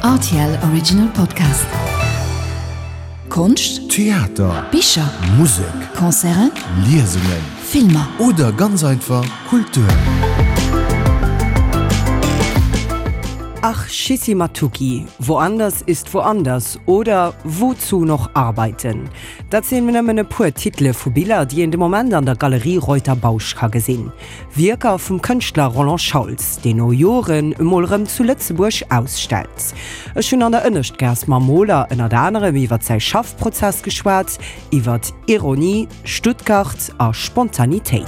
Rtl Original Podcast. Konscht, Theater, Bicher, Musek, Concerten, Liesungen, Filmer. Oder ganz einfach Kultur. Ach Schissi Matuki, Woanders ist woanders oder Wozu noch arbeiten? Dat sinn nëmmen e puer Titele vu Biller, déi een de Moment an der Galerie Reuter-Bausch ka gesinn. Wierker vum Kënschtler Roland Schauls, deen no Joren emol erëm zu Lëtzebuerg ausstellt. Ech hunn an der Ënneschtgaass mam Moler ënnert anerem iwwer säi Schaffprozess geschwat, iwwer Ironie, Stuttgart a Spontanitéit.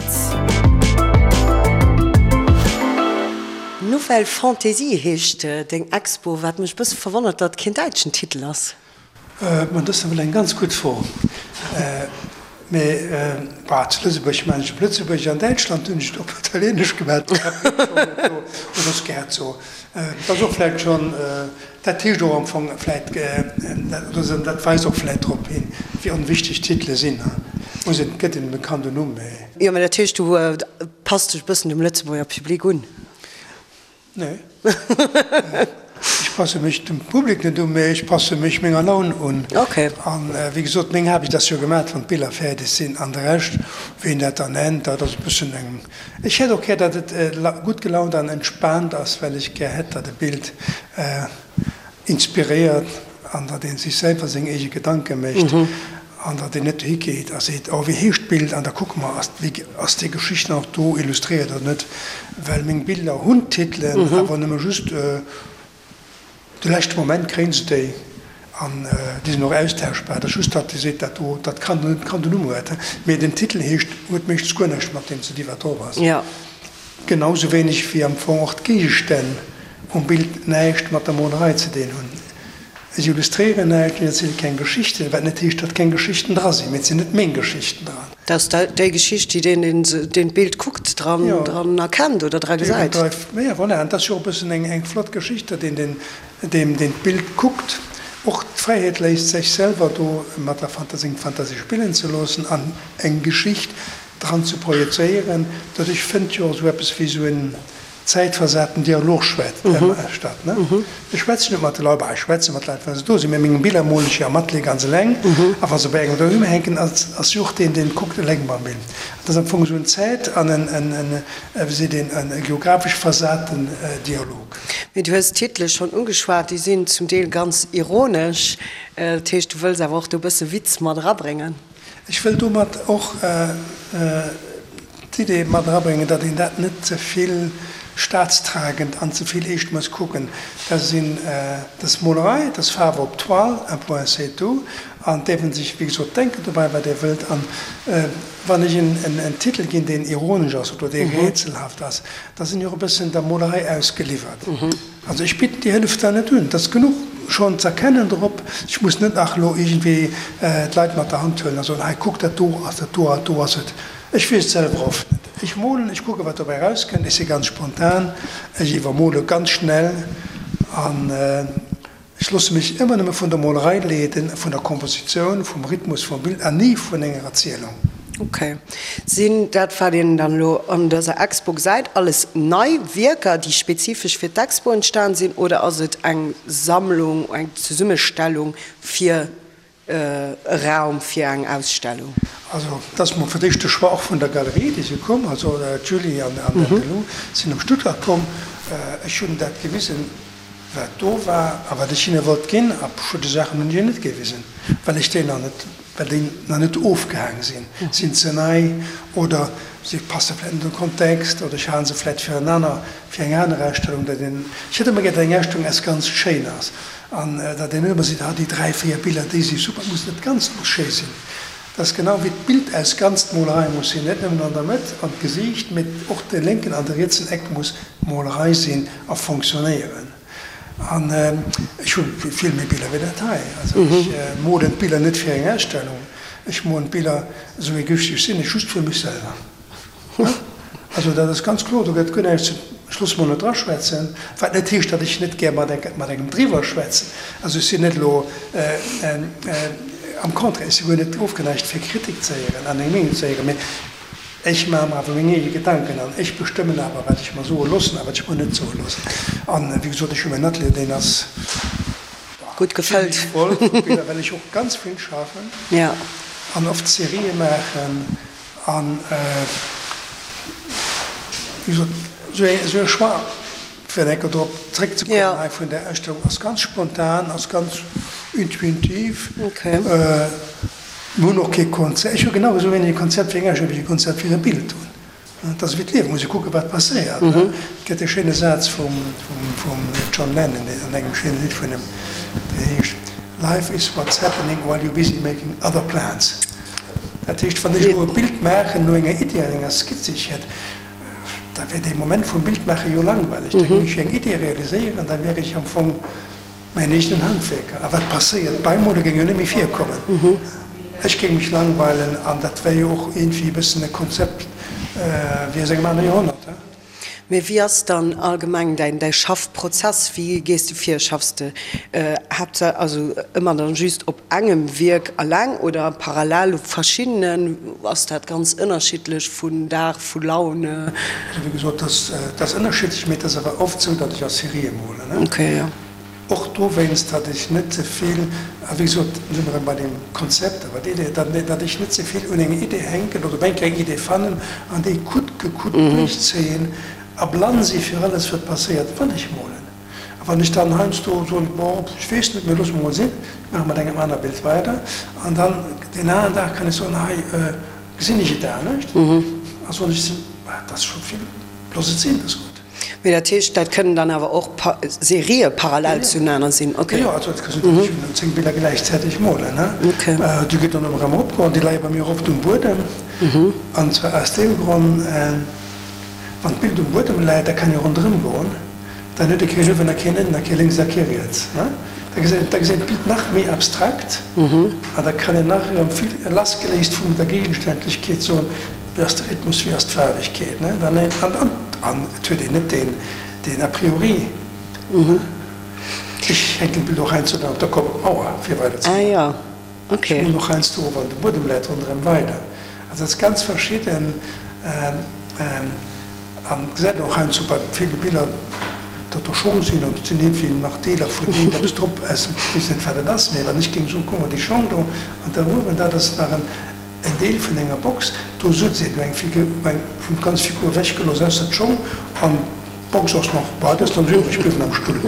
Nouvelle Fantaisie heescht deng Expo, wat mech e bësse verwonnert, datt et keen däitschen Titel ass. Ma dat ass nawell eng ganz gutt Fro. Mee bah, zu Lëtzebuerg maachen ech op Lëtzebuergesch, an Däitschland hunn ech et op Italieenesch gemaach. Oder Scherzo. Dat ass och vläicht schonn, dat heescht och am Fong vläicht, oder dat weist och vläicht drop hin, wéi onwichteg Titele sinn. Muss een, et gëtt een dem Kand en Numm, mee. Jo, mä dat heescht, du passt dech e bëssen dem Lëtzebuerger Public un? Nee. Ech passe mech dem Public net un, mee ech passe mech menger Laun un. An wéi gesot, meng Aarbecht ass jo gemaat, wann d'Biller fäerdeg sinn. An de Rescht, wéi een dat dann nennt, dat ass e bëssen eng. Ech hätt och gär, datt et gutt gelaunt an entspaant ass, well ech gär hätt, datt e Bild inspiréiert an datt ee sech selwer seng eege Gedanke mécht an datt een net dohi geet a seet, oh wéi heescht d'Bild an da kucke mer, ass wéi ass déi Geschicht nach do illustréiert oder net, well meng Biller hunn Titelen, awer nëmme just de leschte Moment kréie se déi an déi sinn och austauschbar. Et ass just, datt ee seet, dat do, dat kann kann den Numm huet, mee den Titel heescht, huet meeschtens guer näischt mat deem ze di wat drop ass. Genau sou wéineg wéi am Fong och d'Géigestänn um Bild näischt mat der Molerei ze dinn hunn. Ech illustréieren näischt, ech erziele keng Geschichten, wat net heescht, datt keng Geschichten dra sinn, mee et sinn net meng Geschichten dran. Dat ass déi Geschicht, déi deen, deen d'Bild kuckt, dran erkennt oder dra gesäit. Jo, voilà, an et ass jo och e bëssen eng flott Geschicht, datt een deen, deem deen d'Bild kuckt, och d'Fräiheet léisst, sech selwer do mat der seng Fantasie spillen ze loossen an eng Geschicht dran ze projezéieren. Doduerch fënnt jo och esou eppes wéi esou en zäitversaten Dialog statt. Ech schwätzen net mat de Leit, bah, ech schwätze mat Leit, wa se do sinn, mä meng Biller molen ech jo am Atelier ganz eleng, a wa se bei engem doheem hänken, ass jo och deen, deen kuckt, eleng mam Bild. Dat ass am Fong esou en zäit an en, wéi seet een, e geographesch versaten Dialog. Mee du hues d'Titele schonn ugeschwat, déi sinn zum Deel ganz ironesch. Dat heescht, du wëlls awer och do e bësse Witz mat erabréngen? Ech wëll domat och d'Idee mat erabréngen, datt een dat net ze vill staatstragend an ze vill eescht muss kucken. Dat sinn, dat ass Molerei, dat ass Faarf op Toile, un point c'est tout. An et däerf ee sech, wéi gesot, denken dobäi, wat ee wëllt. An wann ech en Titel ginn, deen ironesch ass oder dee rätselhaft ass, da sinn ech och e bëssen der Molerei ausgeliwwert. Also ech bidden déi Hëllef da net un. Et ass genuch schonn z'erkennen drop. Ech muss net nach elo iergendwéi d'Leit mat der Hand huelen a soen, hei kuck, dat do ass dat do a do ass et. Ech weess et selwer oft net. Ech molen, ech kucke wat dobäi erauskënnt. Ech si ganz spontan, ech iwwermole ganz schnell an Ech loosse mech ëmmer nëmme vun der Molerei leeden, vun der Kompositioun, vum Rhythmus vum Bild an ni vun enger Erzielung. Ok. Sinn dat, wat een dann elo an dëser Expo gesäit, alles nei Wierker, déi spezifesch fir d'Expo entstan sinn, oder ass et eng Sammlung, eng Zesummestellung fir e Raum fir eng Ausstellung? Also dat ass mol fir d'éischt de Choix och vun der Galerie, déi si komm, also d'Julie an den Lou sinn op Stuttgart komm. Ech hunn dat gewisen, wat do war a wat ech hinne wollt ginn. A verschidde Saachen hunn ech hinnen net gewisen, well ech déi nach net, well déi nach net ofgehaang sinn, sinn ze nei oder si passe vläicht net an de Kontext oder ech hale se vläicht fir en aner, fir eng aner Ausstellung. Dat een, ech hätt ëmmer gär, datt eng Ausstellung eppes ganz schéin ass. An datt een net ëmmer seet, ah déi 3, 4 Biller, déi si super, et muss net d'Ganzt muss schéi sinn. Dat ass genau wéi d'Bild aus ganz d'Molerei muss sinn, net nëmmen an der Mëtt an d'Gesiicht, mee och de lénken an de rietsen Eck muss Molerei sinn a fonctionnéieren. An ech hu vill méi Biller wéi dat hei. Also ech molen d'Biller net fir eng Ausstellung, ech molen d'Biller, esou egoistesch sinn ech, just fir mech selwer. Also dat ass ganz kloer, do gëtt guer näischt ze, ech loosse mer net draschwätzen, wat net heescht, datt ech net gär mat engem driwwer schwätzen. Also ech sinn net elo, am Contraire, ech si guer net ofgeneigt fir Kritik ze héieren an eng Meenung ze héieren, mee ech maache mer awer meng eege Gedanken an ech bestëmmen awer wat ech mer soe loossen a wat ech mer net soe loossen. An wéi gesot, ech hu mäin Atelier, deen ass. gutt gefëllt. Zimmlech voll vu Biller, well ech och ganz vill schaffen an oft Serië maachen an, wéi gesot, esou e Choix, fir eng Kéier drop zréckzekommen hei vun där Ausstellung, ass ganz spontan, ass ganz intuitiv. Mir hunn och kee Konzept, ech hu genau esou wéineg e Konzept fir eng Ausstellung, wéi ech e Konzept fir e Bild hunn. Et ass ewéi d'Liewen, muss ee kucken, wat passéiert. Et gëtt e schéine Saz vum John Lennon an engem schéine Lidd vun him, deen heescht, Life is what's happening while you're busy making other plans. Dat heescht, wann ech elo e Bild maachen no enger Iddi an enger Skizz, déi ech hätt, da wär dee Moment vum Bildmaache jo langweileg. Da géing ech jo eng Iddi realiséieren, da wär ech am Fong Mäin eegenen Handwierker. A wat passéiert? Beimole géing jo net méi virkommen. Ech géing mech langweilen an dat wär jo och iergendwéi e bëssen e Konzept wéi aus engem anere Joerhonnert. Mee wéi ass dann allgemeng däin däi Schaffprozess? Wéi gees de vir? Schaffs de haaptsächlech, also ëmmer dann just op engem Wierk alleng oder parallel op verschiddenen? Ass dat ganz ënnerschiddlech vun Dag, vu Laune? Also wéi gesot, dat ass ënnerschiddlech, mee et ass awer oft esou, datt ech a Serië molen. Okay, jo. Och dowéinst, datt ech net ze vill, a wéi gesot, do si mer erëm bei deem Konzept, awer déi Idee, datt ech net ze vill un enger Idee hänken oder op eng Kéier eng Idee fannen an déi coûte que coûte duerchzéien a blann si fir alles, wat passéiert, wann ech molen. A wann ech dann heiansdo soen, bon, ech weess net, mee loosse mer mol sinn, ech maache mat engem aner Bild weider, an dann deen aneren Dag kann ech soen, hei gesinn ech et anescht, a soen ech, dat ass scho vill, looss et sinn, dat ass gutt. Mee dat heescht, dat kënnen dann awer och Serië parallel zuenaner sinn? Ok. Jo, also et ka sinn, datt ech 10 Biller gläichzäiteg molen. Déi gëtt dann ëmmer erëm eropgeholl. Déi leie bei mir oft um Buedem. An zwar aus deem Grond, wann d'Bild um Buedem läit, da kann ee ronderëm goen. Dann huet ee kee uewen a keen ënnen a kee lénks a kee riets. Da gesäit da gesäit d'Bild nach méi abstrakt an da kann een nach erëm vill lassgeléist vun der Gegenständlechkeet soen, Wéi ass de Rhythmus, wéi ass d'Faarwegkeet, ne? Dann een, an, an, an et huet een net deen, deen a priori. Ech hänken d'Bild och heiansdo dann op der Kopp op d'Mauer, fir weider ze Ah jo, okay. Ech molen och heiansdo, wann de Buedem läit, ronderëm weider. Also dat ass ganz verschidden. An et gesäit een och heiansdo bei ville Biller, datt do Schong sinn an et sinn iergendwéi nach Deeler vun iergendeppes drop, aus dem, ech weess net wat et ass, mee wann ech géing soen, kuck mol déi Schong do an da uewen, dat ass nach en. En Deel vun enger Box, do sutz een eng Figur, eng vun d'ganz Figur ewech gelooss, ausser d'Schong an d'Box ass nach, bah, dat ass dann esou iwwreg bliwwen am Stull.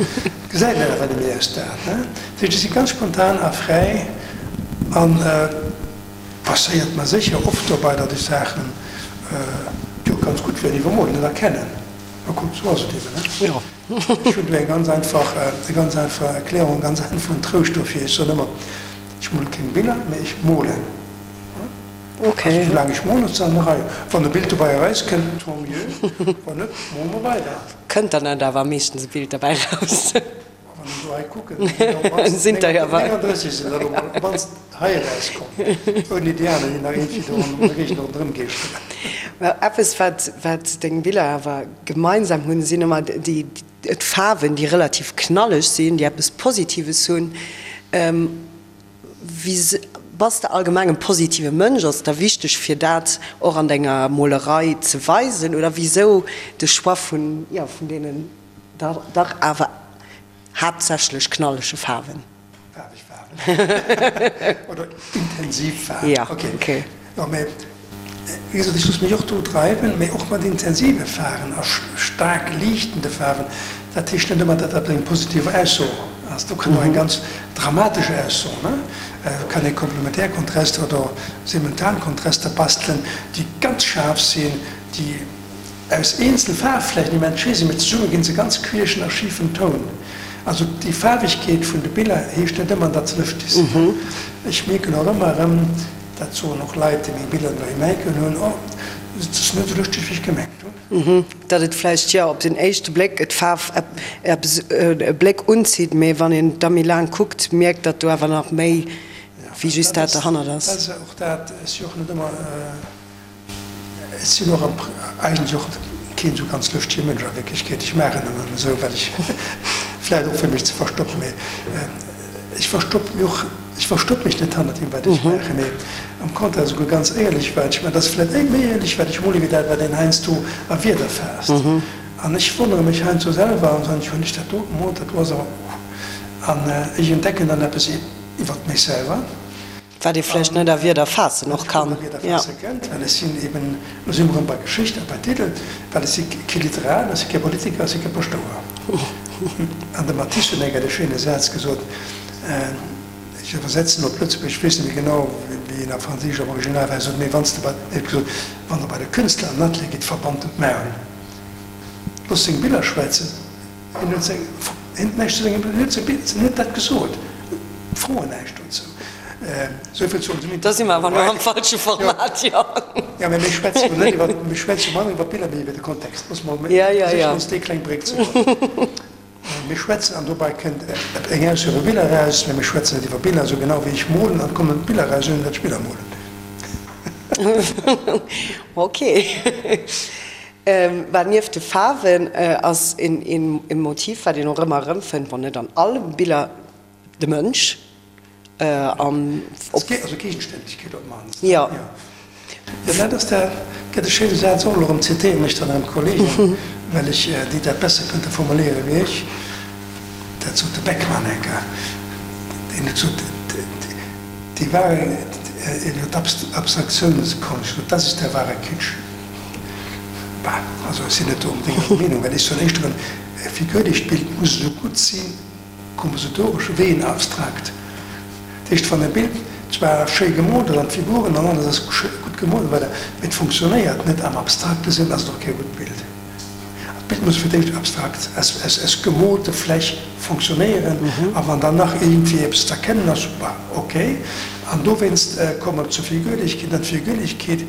Gesäit een awer net méi aus dat, ne? Dat heescht, ech si ganz spontan a fräi an passéiert mer sécher oft dobei, datt ech Saachen, déi och ganz gutt wieren, iwwermol net erkennen. Ma kuck, esou ass et eben, ne? Jo. Ech hunn do eng ganz einfach, eng ganz einfach Erklärung, e ganz einfachen Trouscht dofir, Ech soen ëmmer, Ech mole keng Biller, mee ech molen. Okay. Also soulaang ech molen, ass et an der Rei. Wann e Bild dobäi erauskënnt, tant mieux, wann net, mole mer weider. Kënnt dann net awer meeschtens e Bild derbäi raus? Wann ech elo hei kucken, sinn der op d'mannst 39 sinn der elo mol op d'mannst hei erauskomm, ouni déi aner, déi nach iergendwéi do an der Géigend ronderëm geeschteren. Well eppes, wat, wat deng Biller awer gemeinsam hunn, sinn ëmmer déi, d'Faarwen, déi relativ knalleg sinn, déi eppes Positives hunn. Wéi bass de allgemeng e positive Mënsch? Ass et der wichteg fir dat och an denger Molerei ze weisen oder wisou de Choix vun, jo, vun deenen dach awer haaptsächlech knallege Faarwen? Faarweg Faarwen oder intensiv Faarwen. Ja, okay. Jo, mä wéi gesot, ech loosse mech och do dreiwen, mä och mat intensive Faarwen a staark liichtende Faarwen. Dat heescht net ëmmer, datt dat eng positiv Ausso ass. Do kann och eng ganz dramatesch Ausso, ne? Do kann ee Komplementärkontraster oder Simultankontraster bastelen, déi ganz schaarf sinn, déi aus eenzel Faarfflächen immens schéi sinn, mee zesumme ginn se ganz queeschen a schifen Toun. Also déi Faarwegkeet vun de Biller heescht net ëmmer, datt se lëschteg sinn. Ech mierken och ëmmer erëm, dat soen och Leit, déi meng Biller doheem hänken hunn, oh, et ass net esou lëschteg, wéi ech gemengt hunn. Datt et vläicht, jo, op den éischte Bléck d'Faarf eppes e Bléck unzitt, mee wann een da méi laang kuckt, mierkt, datt do awer nach méi wéi just dat derhannert ass. Dat ass och dat, ech si och net ëmmer. Ech sinn och eigentlech och keen esou ganz lëschtege Mënsch a Wierklechkeet. Ech maachen nëmmen esou, well ech, vläicht och fir mech ze verstoppen, mee ech verstoppe mech och, ech verstoppe mech net hannert deem wat ech maachen, mee am Contraire esouguer ganz éierlech wat ech maachen. Dat ass vläicht méi éierlech wat ech mole wéi dat wat een heiansdo a Wierder faasst. An ech wonnere mech heiansdo selwer an soen, hunn ech dat do gemoolt, dat do ass awer, uh. An ech entdecken dann eppes iwwert mech selwer. Wat ee vläicht net a Wierder faassen och kann. Wat net a Wierder faasse kënnt, well ech sinn eben, lo si mer erëm bei Geschicht a bei Titel, well ech si kee Literat, ech si kee Politiker, ech si kee Paschtouer. An de Matisse huet eng Kéier de schéine Saz gesot, ech iwwersetzen op Lëtzebuergesch, ech weess net méi genau, wéi en a Franséisch am Original war, hie sot, Mee wann s de bei, hie huet gesot, wann Der bei de Künstler an den Atelier gitt, verbannt en d'Maul, loosst seng Biller schwätzen. Hien huet seng, hien huet näischt zu sengem, hien huet seng, hien huet dat gesot, froen näischt dozou. Esou vill zu onsem Da si mer awer elo am falsche Format, jo. Jo, mä mir schwätze jo net iwwer, mir schwätze jo manner iwwer d'Biller wéi iwwer de Kontext. Loosse mer versichen, ons déi kleng Bréck ze bauen. Mir schwätzen, an dobei kënnt eng Ausso iwwer Biller eraus, mä mir schwätzen net iwwer Biller, esou genau wéi ech molen, an et kommen Biller eraus, ouni datt ech Biller molen. Okay. Well nieft de Faarwen ass een Motiv, wat een och ëmmer erëmfënnt, wann net an alle Biller, de Mënsch. An op. Also Gegenständlechkeet op d'mannst. Jo. Jo, dat ass dat gëtt e schéine Saz och. Elo erëm zitéieren ech dann erëm Kollegen, well ech déi dat besser kënnte formuléiere wéi ech. Dat sot de Beckmann eng Kéier, deen huet gesot, Die wahre, iwwer d'Abstraktiounskonst, das ist der wahre Kitsch. Bah, also ech sinn net do onbedéngt der Meenung, well ech soen éischter, e figürlecht Bild muss esou gutt si kompositoresch wéi en abstrakt. Dat heescht, wann e Bild zwar schéi gemoolt ass an d'Figuren an alles ass gutt gemoolt an esou weider, mee et funktionéiert net am abstrakte Sënn, ass et och kee gutt Bild. An d'Bild muss fir d'éischt abstrakt, aus gemoolte Fläch funktionéieren, a wann dann nach iergendwéi eppes z'erkennen ass, bah, ok. An dowéinst komme mer zur Figürlechkeet, an d'Figürlechkeet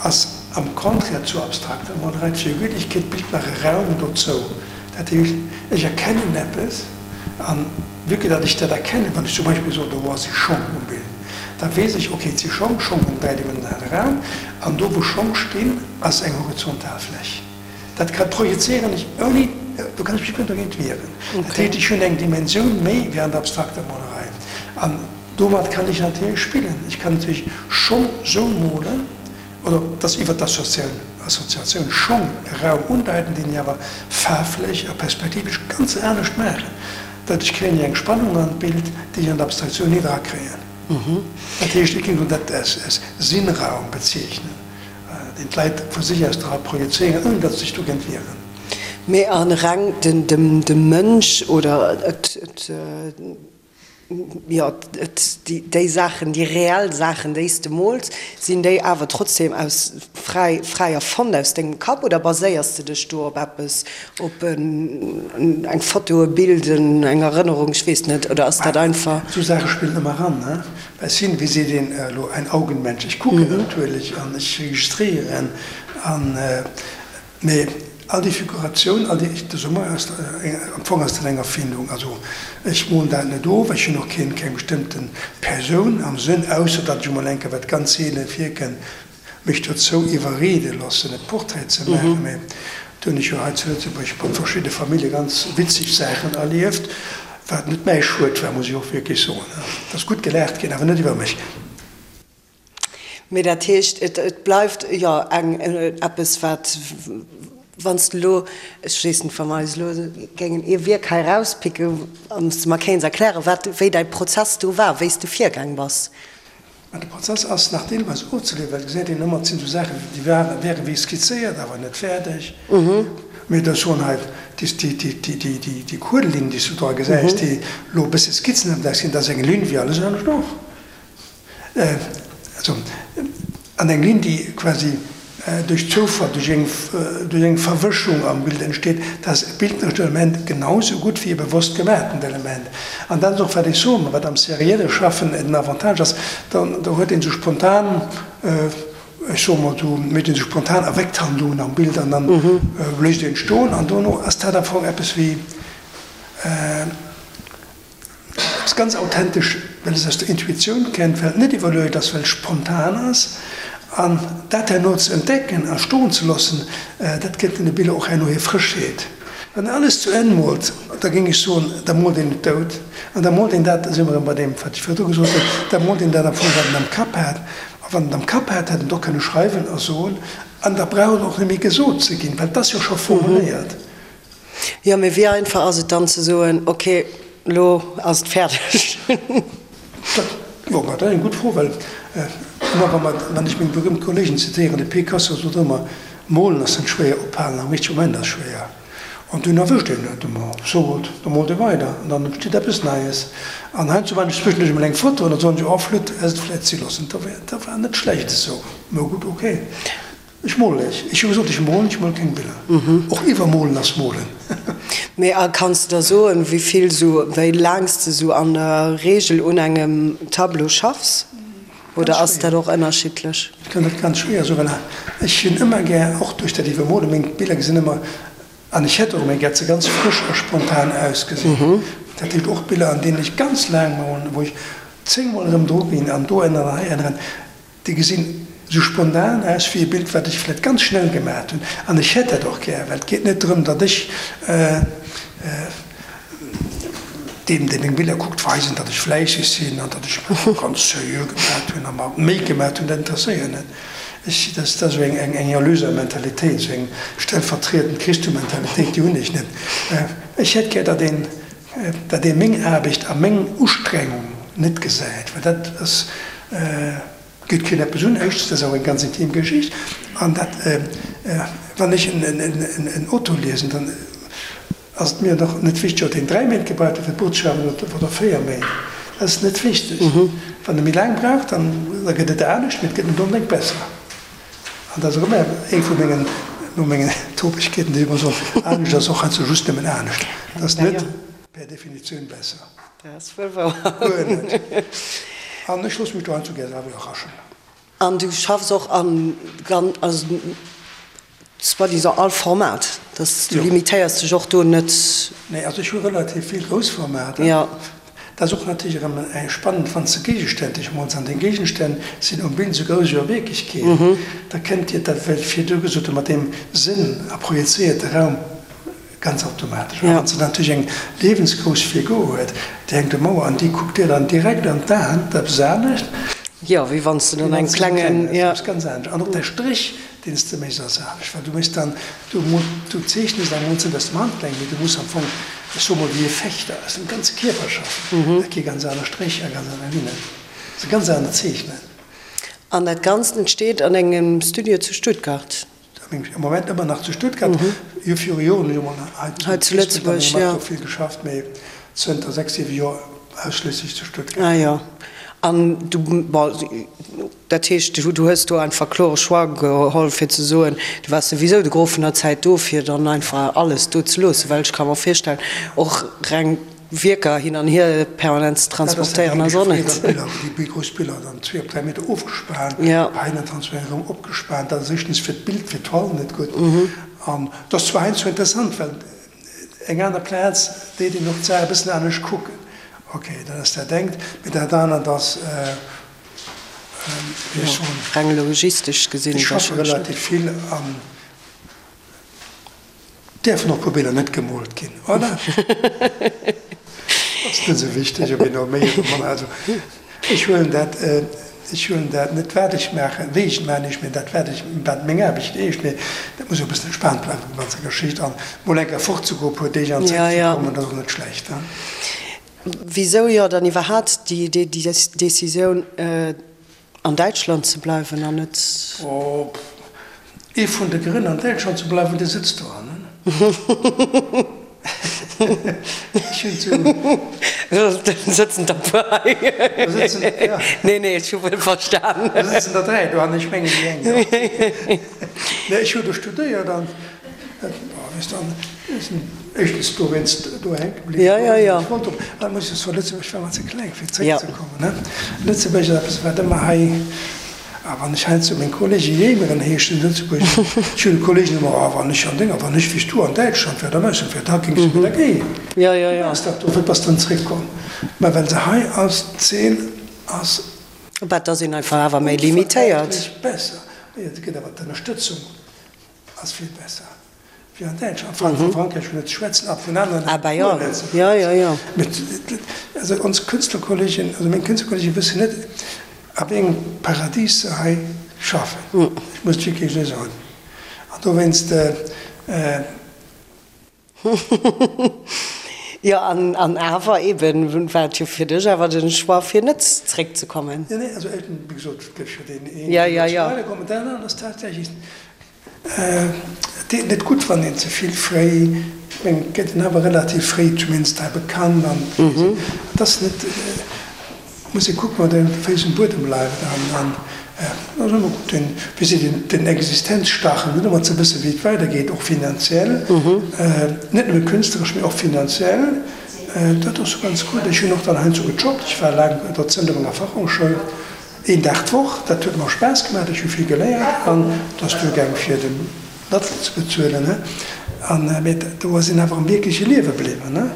ass am Contraire zur abstrakter Molerei, d'Figürlechkeet bilt nach e Raum dozou. Dat heescht, ech erkennen eppes, an vue que datt ech dat erkennen, wann ech zum Beispill soen, do si Schong um Bild, da weess ech, ok, et si Schong, Schong hunn dräidimensionale Raum, an do wou Schong stinn, ass eng horizontal Fläch. Dat ka projezéieren ech ouni, do kann ech mech guer net dogéint wieren. Dat heescht, ech hunn eng Dimensioun méi wéi an der abstrakter Molerei. An domat kann ech natierlech spillen. Ech kann natierlech Schong sou molen, oder dass iwwer d'Assoziatioun Schong e Raum undeiten, deen ech awer faarflech a perspektivesch ganz anescht maachen. Doduerch kréien ech eng Spannung an d'Bild, déi ech an der Abstraktioun net erakréien. Dat heescht, ech géing dat als Sinnraum bezeechnen. Deen d'Leit vu sech aus dra projezéieren, ouni datt se sech dogéint wieren. Mee a reng de Mënsch oder et, jo, et, déi Saachen, déi reell Saachen, déi s de mools, sinn déi awer trotzdem aus fräi, fräi erfonnt aus dengem Kapp oder baséiers de dech do op eppes, op eng Foto, e Bild, eng Erënnerung, ech weess net, oder ass dat einfach. Esou Saache spillen ëmmer eran, ne? Ech sinn, wéi seet een elo, ein Augenmensch. Ech kucken natierlech an ech registréieren an, mee all déi Figuratioun, all déi, de Sommer ass, am Fong ass dat eng Erfindung. Also ech molen dat net of, ech hunn och keen, keng bestëmmte Persoun am Sënn, ausser datt ech emol eng Kéier, wat ganz seele virkënnt, mech dozou iwwerriede loossen e Portrait ze maachen, mä do hunn ech jo hei zu Lëtzebuerg mat verschidde Famillje ganz witzeg Saachen erlieft, wat net mäi Schued war, muss ech och wierklech soen. Et ass gutt gelaacht ginn, awer net iwwer mech. Mee dat heescht, et bleift jo eng eppes wat, wann s de elo, ech weess net, wa mer eis elo géingen ee Wierk hei erauspicken an s de mer kéints erklären, wat, wéi däi Prozess do war, wéi s de virgaang bass. Mä de Prozess ass nach deelweis ofzeliwweren, well et gesäit een ëmmer, et sinn esou Saachen, déi waren, wäre wéi skizzéiert, awer net fäerdeg. Mee da soen hei déi Kuelelinn, déi s du dra gesäis, déi elo e bësse skizzenhaft ausgesinn, dat ass eng Linn wéi alles anescht och. Also, an eng Linn, déi quasi duerch Zoufall, duerch eng, duerch eng Verwëschung am Bild entsteet, dat ass e bildnerescht Element genau esou gutt wéi e bewosst gemaatent Element. An dat ass och, wat ech soen, wat am serielle Schaffen den Avantage ass, dann, do huet een esou spontan, ech soe mol, do mécht een esou spontan Erweckthandlungen am Bild an dann léisst een et stoen an dono ass dat am Fong eppes wéi, Ass ganz authentesch, well es aus der Intuitioun kennt, well et net iwwerluecht ass, well et spontan ass. An dat herno ze entdecken a stoen ze loossen, dat gëtt deene Biller och herno hir Frëschheet. Wann een alles zu Enn moolt, da géing ech soen, da moolt een et dout. An da moolt een dat, da si mer erëm bei deem, wat ech virdru gesot hunn, da moolt een dat am Fong, wat en am Kapp hat. A wann en et am Kapp hat, hätt en et och kënne schreiwen a soen. An da brauch et och net méi gesot ze ginn, well et ass jo scho formuléiert. Jo, mee wéi einfach ass et dann ze soen, ok. Elo ass et fäerdeg. Dat, jo, dat ass eng gutt Fro, well ëmmer wa mer, wann ech meng berühmt Kollegen zitéieren, de Picasso sot ëmmer, Molen ass net schwéier, ophalen am richtege Moment ass schwéier. An dunn erwëscht een et emol, so what, da moolt ee weider an dann entsteet eppes Neies. An heiansdo maachen ech zwëschenduerch emol eng Foto an da soen ech, oh flott, häss et vläicht si loossen, dat war net schlecht esou. Mä gutt, ok. Ech molen ech. Ech hu gesot, ech molen, ech mole keng Biller. Och iwwermolen ass molen. Mee a kanns de da soen, wéi vill sou, wéi laang s de sou an der Reegel un engem Tableau schaffs? Oder ass dat och ënnerschiddlech? Ech kann dat ganz schwéier soen, well ech hunn ëmmer gär, och duerch dat Iwwermolen, meng Biller gesinn ëmmer, an ech hätt och ëmmer gär, dat se ganz frësch a spontan ausgesinn. Dat heescht och Biller, an deenen ech ganz laang molen, wou ech zéngmol erëm dru ginn an do änneren an hei änneren. Déi gesinn esou spontan aus wéi e Bild, wat ech vläicht ganz schnell gemaacht hunn. An ech hätt dat och gär, well et geet net drëm, datt ech deem, dee meng Biller kuckt, weisen, datt ech fläisseg sinn an datt ech ganz seriö gemaacht hunn a mer Méi gemaacht hunn. Dat interesséiert net. Ech, dat ass esou eng Erlöser-Mentalitéit, esou eng stellvertriedend Christo-Mentalitéit, déi hunn ech net. Ech hätt gär, datt een, datt ee meng Aarbecht a meng Ustrengung net gesäit, well dat ass, geet keen eppes un. Éischtens, dat ass och eng ganz intim Geschicht. An dat, wann ech en Auto liesen, dann ass et mir och net wichteg, ob deen 3 Méint gebraucht huet fir d'Buch ze schreiwen oder 4 Méint. Dat ass net wichteg. Wann e méi laang brauch, dann da gëtt et anescht, mee et gëtt net onbedéngt besser. An dat ass och ëmmer eng vu mengen, no mengen Topegkeeten, déi ech ëmmer soen, anescht ass och heiansdo just nëmmen anescht. Et ass net per Definitioun besser. Dat ass wuel wouer. Guer net. An ech loosse mech do heiansdo gär selwer iwwerraschen. An du schaffs och an gan, also soi-disant all Format, dass du limitéiers dech och do net? Nee, also ech hu relativ vill grouss Formater. Jo. Dat ass och natierlech erëm eng spannend, wann s de Géigestänn dech mols, an deng Géigestänn sinn um Bild esou grouss ewéi a Wierklechkeet, da kënnt dir dat, wat ech virdu gesot hu mat deem Sënn a projezéierte Raum, ganz automatesch. A wann s de natierlech eng liewensgrouss Figur huet, déi hänkt um Mauer an déi kuckt dir dann direkt an d'Aen, dat ass eppes anescht. Jo, wéi wann s de dann eng klengen, jo. Dat ass eppes ganz anescht. An och däi Stréch, deen s de méchs, ass anescht, well du méchs dann, du mo, du zeechnest am Mond net aus dem Handgelenk, mee du muss am Fong, ech soe mol, wéi e Fechter, aus dem ganze Kierper schaffen. Dat gi ganz aner Stréch a ganz aner Linnen. Dat ass e ganz anert Zeechnen. An dat Ganzt entsteet an engem Studio zu Stuttgart? Am Moment ëmmer nach zu Stuttgart. Jo, viru Joren hunn ech emol hei zu Lëtzebuerg mat do vill geschafft, mee zënter 6, 7 Joer ausschliesslech zu Stuttgart. Ah jo. An du, bon, dat heescht, du hues do einfach klore Choix geholl, fir ze soen, du waars souwisou de Gros vun der Zäit do, fir dann einfach alles do ze loossen, well ech ka mer virstellen, och reng Wierker hin an hier permanent ze transportéieren ass och net. Dat ass déi grouss Biller, dann zwee op 3 Meter ofgespaant, hei dann transparent erëm opgespaant. Dat ass éischtens fir d'Bild, fir d'Toile net gutt. An dat ass zwar heiansdo interessant, well eng aner Plaz deet een och d'Saach e bëssen anescht kucken. Ok, dat ass dat engt, mee dat anert ass, wéi ech soen, Reng logistesch gesinn ech schaffe relativ vill an. Däerfen och puer Biller net gemoolt ginn, oder? Ass net esou wichteg, ob een elo méi oder manner. Also ech huelen dat, ech huelen dat net wat ech maachen, wéi ech et maachen, eescht, mee dat wat ech, wat meng Aarbecht eescht. Mee dat muss och e bëssen entspaant bleiwen, déi ganze Geschicht. An mol eng Kéier fortzegoen, e puer Deeg an zréckzekommen, dat ass och net schlecht, ne? Wisou jo dann iwwerhaat déi Decisioun? An Däitschland ze bleiwen an net. Oh, ee vun de Grënn an Däitschland ze bleiwen, dee sëtzt dohannen. Ech hunn zu. Do sëtzen der puer hei. Do sëtzen, ja. Nee, nee, ech hu wuel verstan. Do sëtzen der 3 dohannen, ech mengen déi eng, jo. Nee, ech hu do studéiert an, oh, weess de, an ech sinn éischtens dowéinst do hänke bliwwen. Ja, ja, ja. Ech wollt och, an muss ech soen, Lëtzebuerg war mer ze kleng fir zréckzekommen, ne. Lëtzebuerg ass eppes wat ëmmer hei, a wann ech heiansdo meng Kollege jéimeren heeschen, Lëtzebuerg, ech hunn Kollegen ëmmer, oh wann ech an denger, wann ech wéi s du an Däitschland wär, da mess wär, da géings du mir da géien. Ja, ja, ja. Du bass dach do, wéi bass dann zréckkomm? Mä well se hei ass, d'Zeen ass. Bah, et ass een einfach awer méi limitéiert. Onvergläichlech besser. Et gëtt awer d'Ënnerstëtzung ass vill besser. Wéi an Däitschland, a vu Frankräich vun net ze schwätzen, a vun aneren Ah bah jo, net ze jo, jo, jo. Mee also ons Künstlerkollegen, also meng Künstlerkollegen wëssen net, a wéi engem Paradies se hei schaffen. Ech muss et wierklech esou soen. An dowéinst. Jo, an, an awer eben war et jo fir dech awer den Choix fir net zréckzekommen. Jo, nee, also wéi gesot, et gëff jo deen een, Ja, deen ja, net ja. weiderkommen. Dat anert ass tatsächlech, et deet net gutt, wann een ze vill fréi, ech mengen, et gëtt een awer relativ fréi zumindest hei bekannt an et ass net, Muss ee kucken, wat engem de Féiss um Buedem bleift. An et ass ëmmer gutt, den, wéi seet een, den Existenzstachel huet, ëmmer ze wëssen, wéi et weidergeet, och finanziell, net nëmme künstleresch, mee och finanziell. Dat ass ganz gutt. Ech hunn och dann heiansdo gejobbt. Ech war laang Dozent op enger Fachhochschoul, een Dag d'Woch. Dat huet mer Spaass gemaach, ech hu vill geléiert an et ass duergaang fir den Lattel ze bezuelen. An, mee do ass een awer am wierkleche Liewe bliwwen.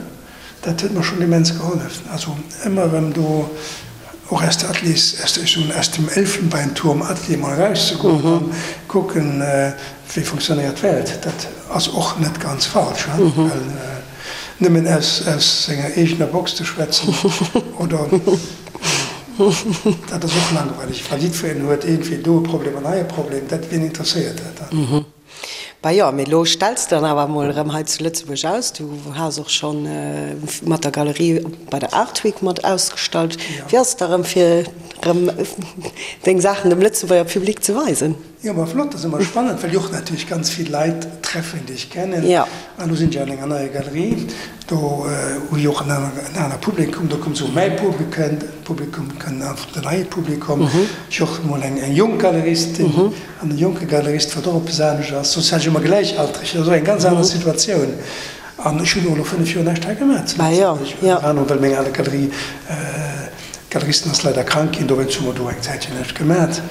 Dat huet mer schonn immens gehollef. Also ëmmer erëm do och aus de Ateliers, aus de, ech soen, aus dem Elfenbeinturm Atelier mol erauszegoen an kucken, wéi funktionéiert d'Welt. Dat ass och net ganz falsch, hein, well nëmmen aus, aus senger eegener Box ze schwätzen oder, dat ass och langweileg, well jiddwereen huet iergendwéi do e Problem an hei e Problem. Dat, wien interesséiert dat dann? Bah jo, mee elo stells de dann awer emol erëm hei zu Lëtzebuerg aus. Du has och scho mat der Galerie bei der Art Week mat ausgestallt. Wéi ass et da erëm fir erëm deng Saachen dem Lëtzebuerger Public ze weisen? Jo, ma flott, dat ass ëmmer spannend, well ech och natierlech ganz vill Leit treffen, déi ech kennen. An elo sinn ech an enger neier Galerie, do hu ech och en aner Publikum, do kommt esou mäi Publikum, kënn einfach den neie Publikum. Ech och emol eng jonk Galeristin. An e jonke Galerist, wat och eppes anescht ass, soss hat ech ëmmer Gläichaltreg, dat ass och eng ganz aner Situatioun. An ech hunn och elo 5 Joer näischt hei gemaach zu Lëtzebuerg, ënner anerem well meng ale Galerie, Galeristin ass leider krank ginn, dowéinst hu mer do eng Zäitchen näischt gemaat.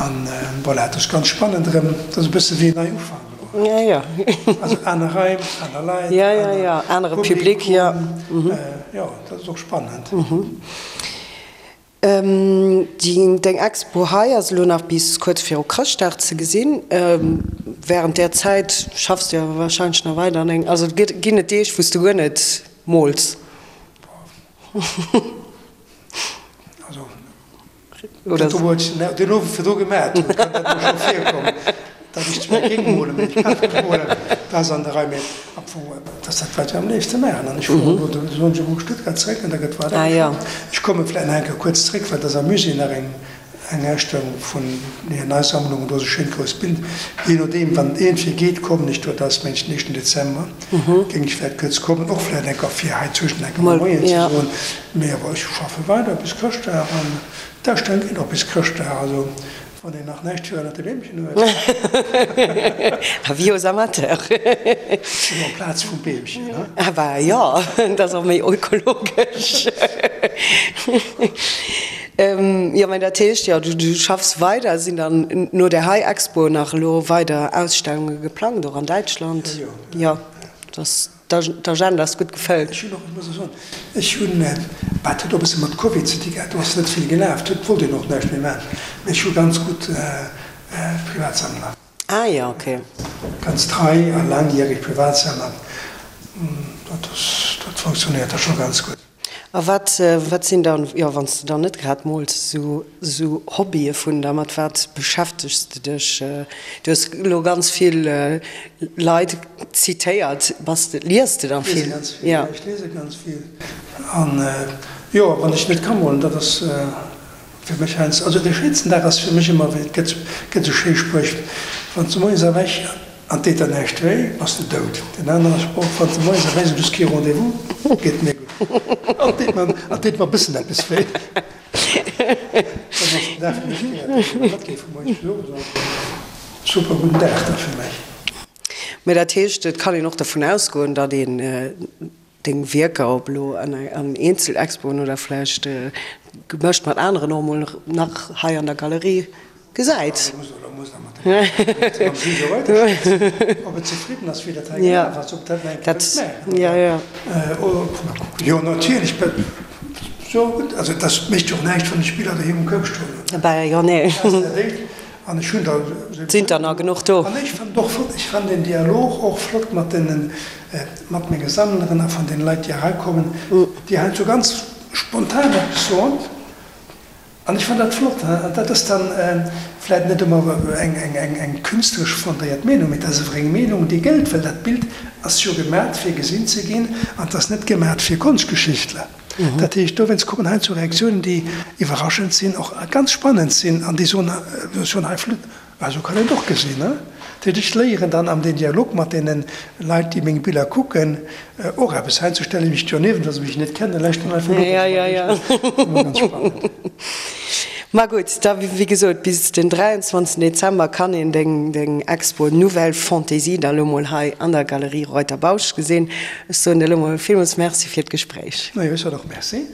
An voilà, et ass ganz spannend erëm, et ass e bësse wéi en Neiufank elo. Also aner Raim, aner Leit, anere Public, jo, dat ass och spannend. Deng Expo hei ass elo nach bis kuerz viru Chrëschtdag ze gesinn. Wärend där Zäit schaffs du awer warscheinlech nach weider an engem, also ginn et Deeg wou s du guer net mools? Also dat do wou ech den Owend virdru gemat hunn, kann dat mol scho virkommen, datt ech zwar géing molen, mee ech kann net molen, dat ass an der Rei. Mee am Fong, dat ass dat wat ech am léifste maachen an ech fueren elo de Sonndeg op Stuttgart zeréck an da gëtt weider geschafft. Ech komme vläicht nach eng Kéier kuerz zeréck, well et ass am Musée nach eng eng Ausstellung vun hir nei Sammlung, do ass e schéint grousst Bild. Jee nodeem, wann et iergendwéi geet, kommen ech do, dat ass mengen ech den éischten Dezember, géing ech vläicht kuerz kommen, och vläicht eng Kéier fir hei zwëschen eng Kéier mol Moien ze soen. Mee awer ech schaffe weider bis Chrëschtdag an d'Ausstellung geet och bis Chrëschtdag, also wann een nach näischt fir ënnert de Beemchen huet. Avis aux amateurs. Oder amplaz vum Beemchen, ne? Ah bah jo, dat ass och méi ökologesch. Jo, mä dat heescht jo, du schaffs weider. Sinn dann no där hei Expo nach elo weider Ausstellunge geplangt, och an Däitschland? Jo, jo. Jo, D'Agenda ass gutt gefëllt. Ech hunn och, ech muss och soen, ech hunn, bah, dat huet och e bësse mat Covid ze di gehat, do ass net vill gelaf, do wollt een och näischt méi maachen, mee ech hu ganz gutt Privatsammler. Ah jo, ok. Ganz trei a laangjäreg Privatsammler, dat ass, dat funktionéiert da scho ganz gutt. A wat, wat sinn dann, jo, wann s de dann net grad mools, esou, esou Hobbye vun der? Mat wat beschäftegs de dech? Du hues elo ganz vill Leit zitéiert. Bass de, lies de dann vill? Ech liese ganz vill, jo, ech liese ganz vill. An, jo, wann ech net ka molen, dat ass fir mech heiansdo, also de schéinsten Dag ass fir mech ëmmer, et gëtt, gëtt esou schéi Spréch, wann s de moies erwächs, An deet der näischt wéi, bass de dout. Den anere Sproch, Wann s de moies erwächs an du hues kee Rendez-vous, geet mir gutt. An deet mer, an deet mer e bëssen eppes wéi. Dann ass den Dag fir mech gerettet. Wann dat géif vu moies bis owes ass, super gudden Dag da fir mech. Mä dat heescht, et kann een och dervun ausgoen, datt een Deng Wierker, ob elo an Eenzelexpoen oder vläicht gemëscht mat aneren, och emol nach hei an der Galerie gesäit. An ech hunn der. Sinn der nach genuch do? An ech fannen och flott, ech fannen den Dialog och flott mat deenen, mat menge Sammleren a vun deene Leit, déi erakommen, déi heiansdo ganz spontan eppes soen. An ech fannen dat flott. An dat ass dann vläit net ëmmer eng künstleresch fondéiert Meenung, mee dat ass awer eng Meenung, déi gëllt, well dat Bild ass jo gemat fir gesinn ze ginn an et ass net gemat fir Konschtgeschichtler. Dat heescht, dowéinst kommen heiansdo Reaktiounen, déi iwwerraschend sinn, och ganz spannend sinn an déi soen, soen hei flott, Ah, sou kann een et och gesinn, ne? Dat heescht, ech léieren dann am den Dialog mat deene Leit, déi meng Biller kucken, och eppes. Heiansdo stelle ech mech doniewent, wa se mech net kennen, lauschteren einfach no, dat ass ëmmer ganz spannend. Ma gutt, da wéi gesot, bis den 23 Dezember kann een deng deng Expo Nouvelle Fantaisie da lo mol hei an der Galerie Reuter-Bausch gesinn. Ech soen dir lo mol villmools Merci fir d'Gespréich. Majo, ech soen och Merci.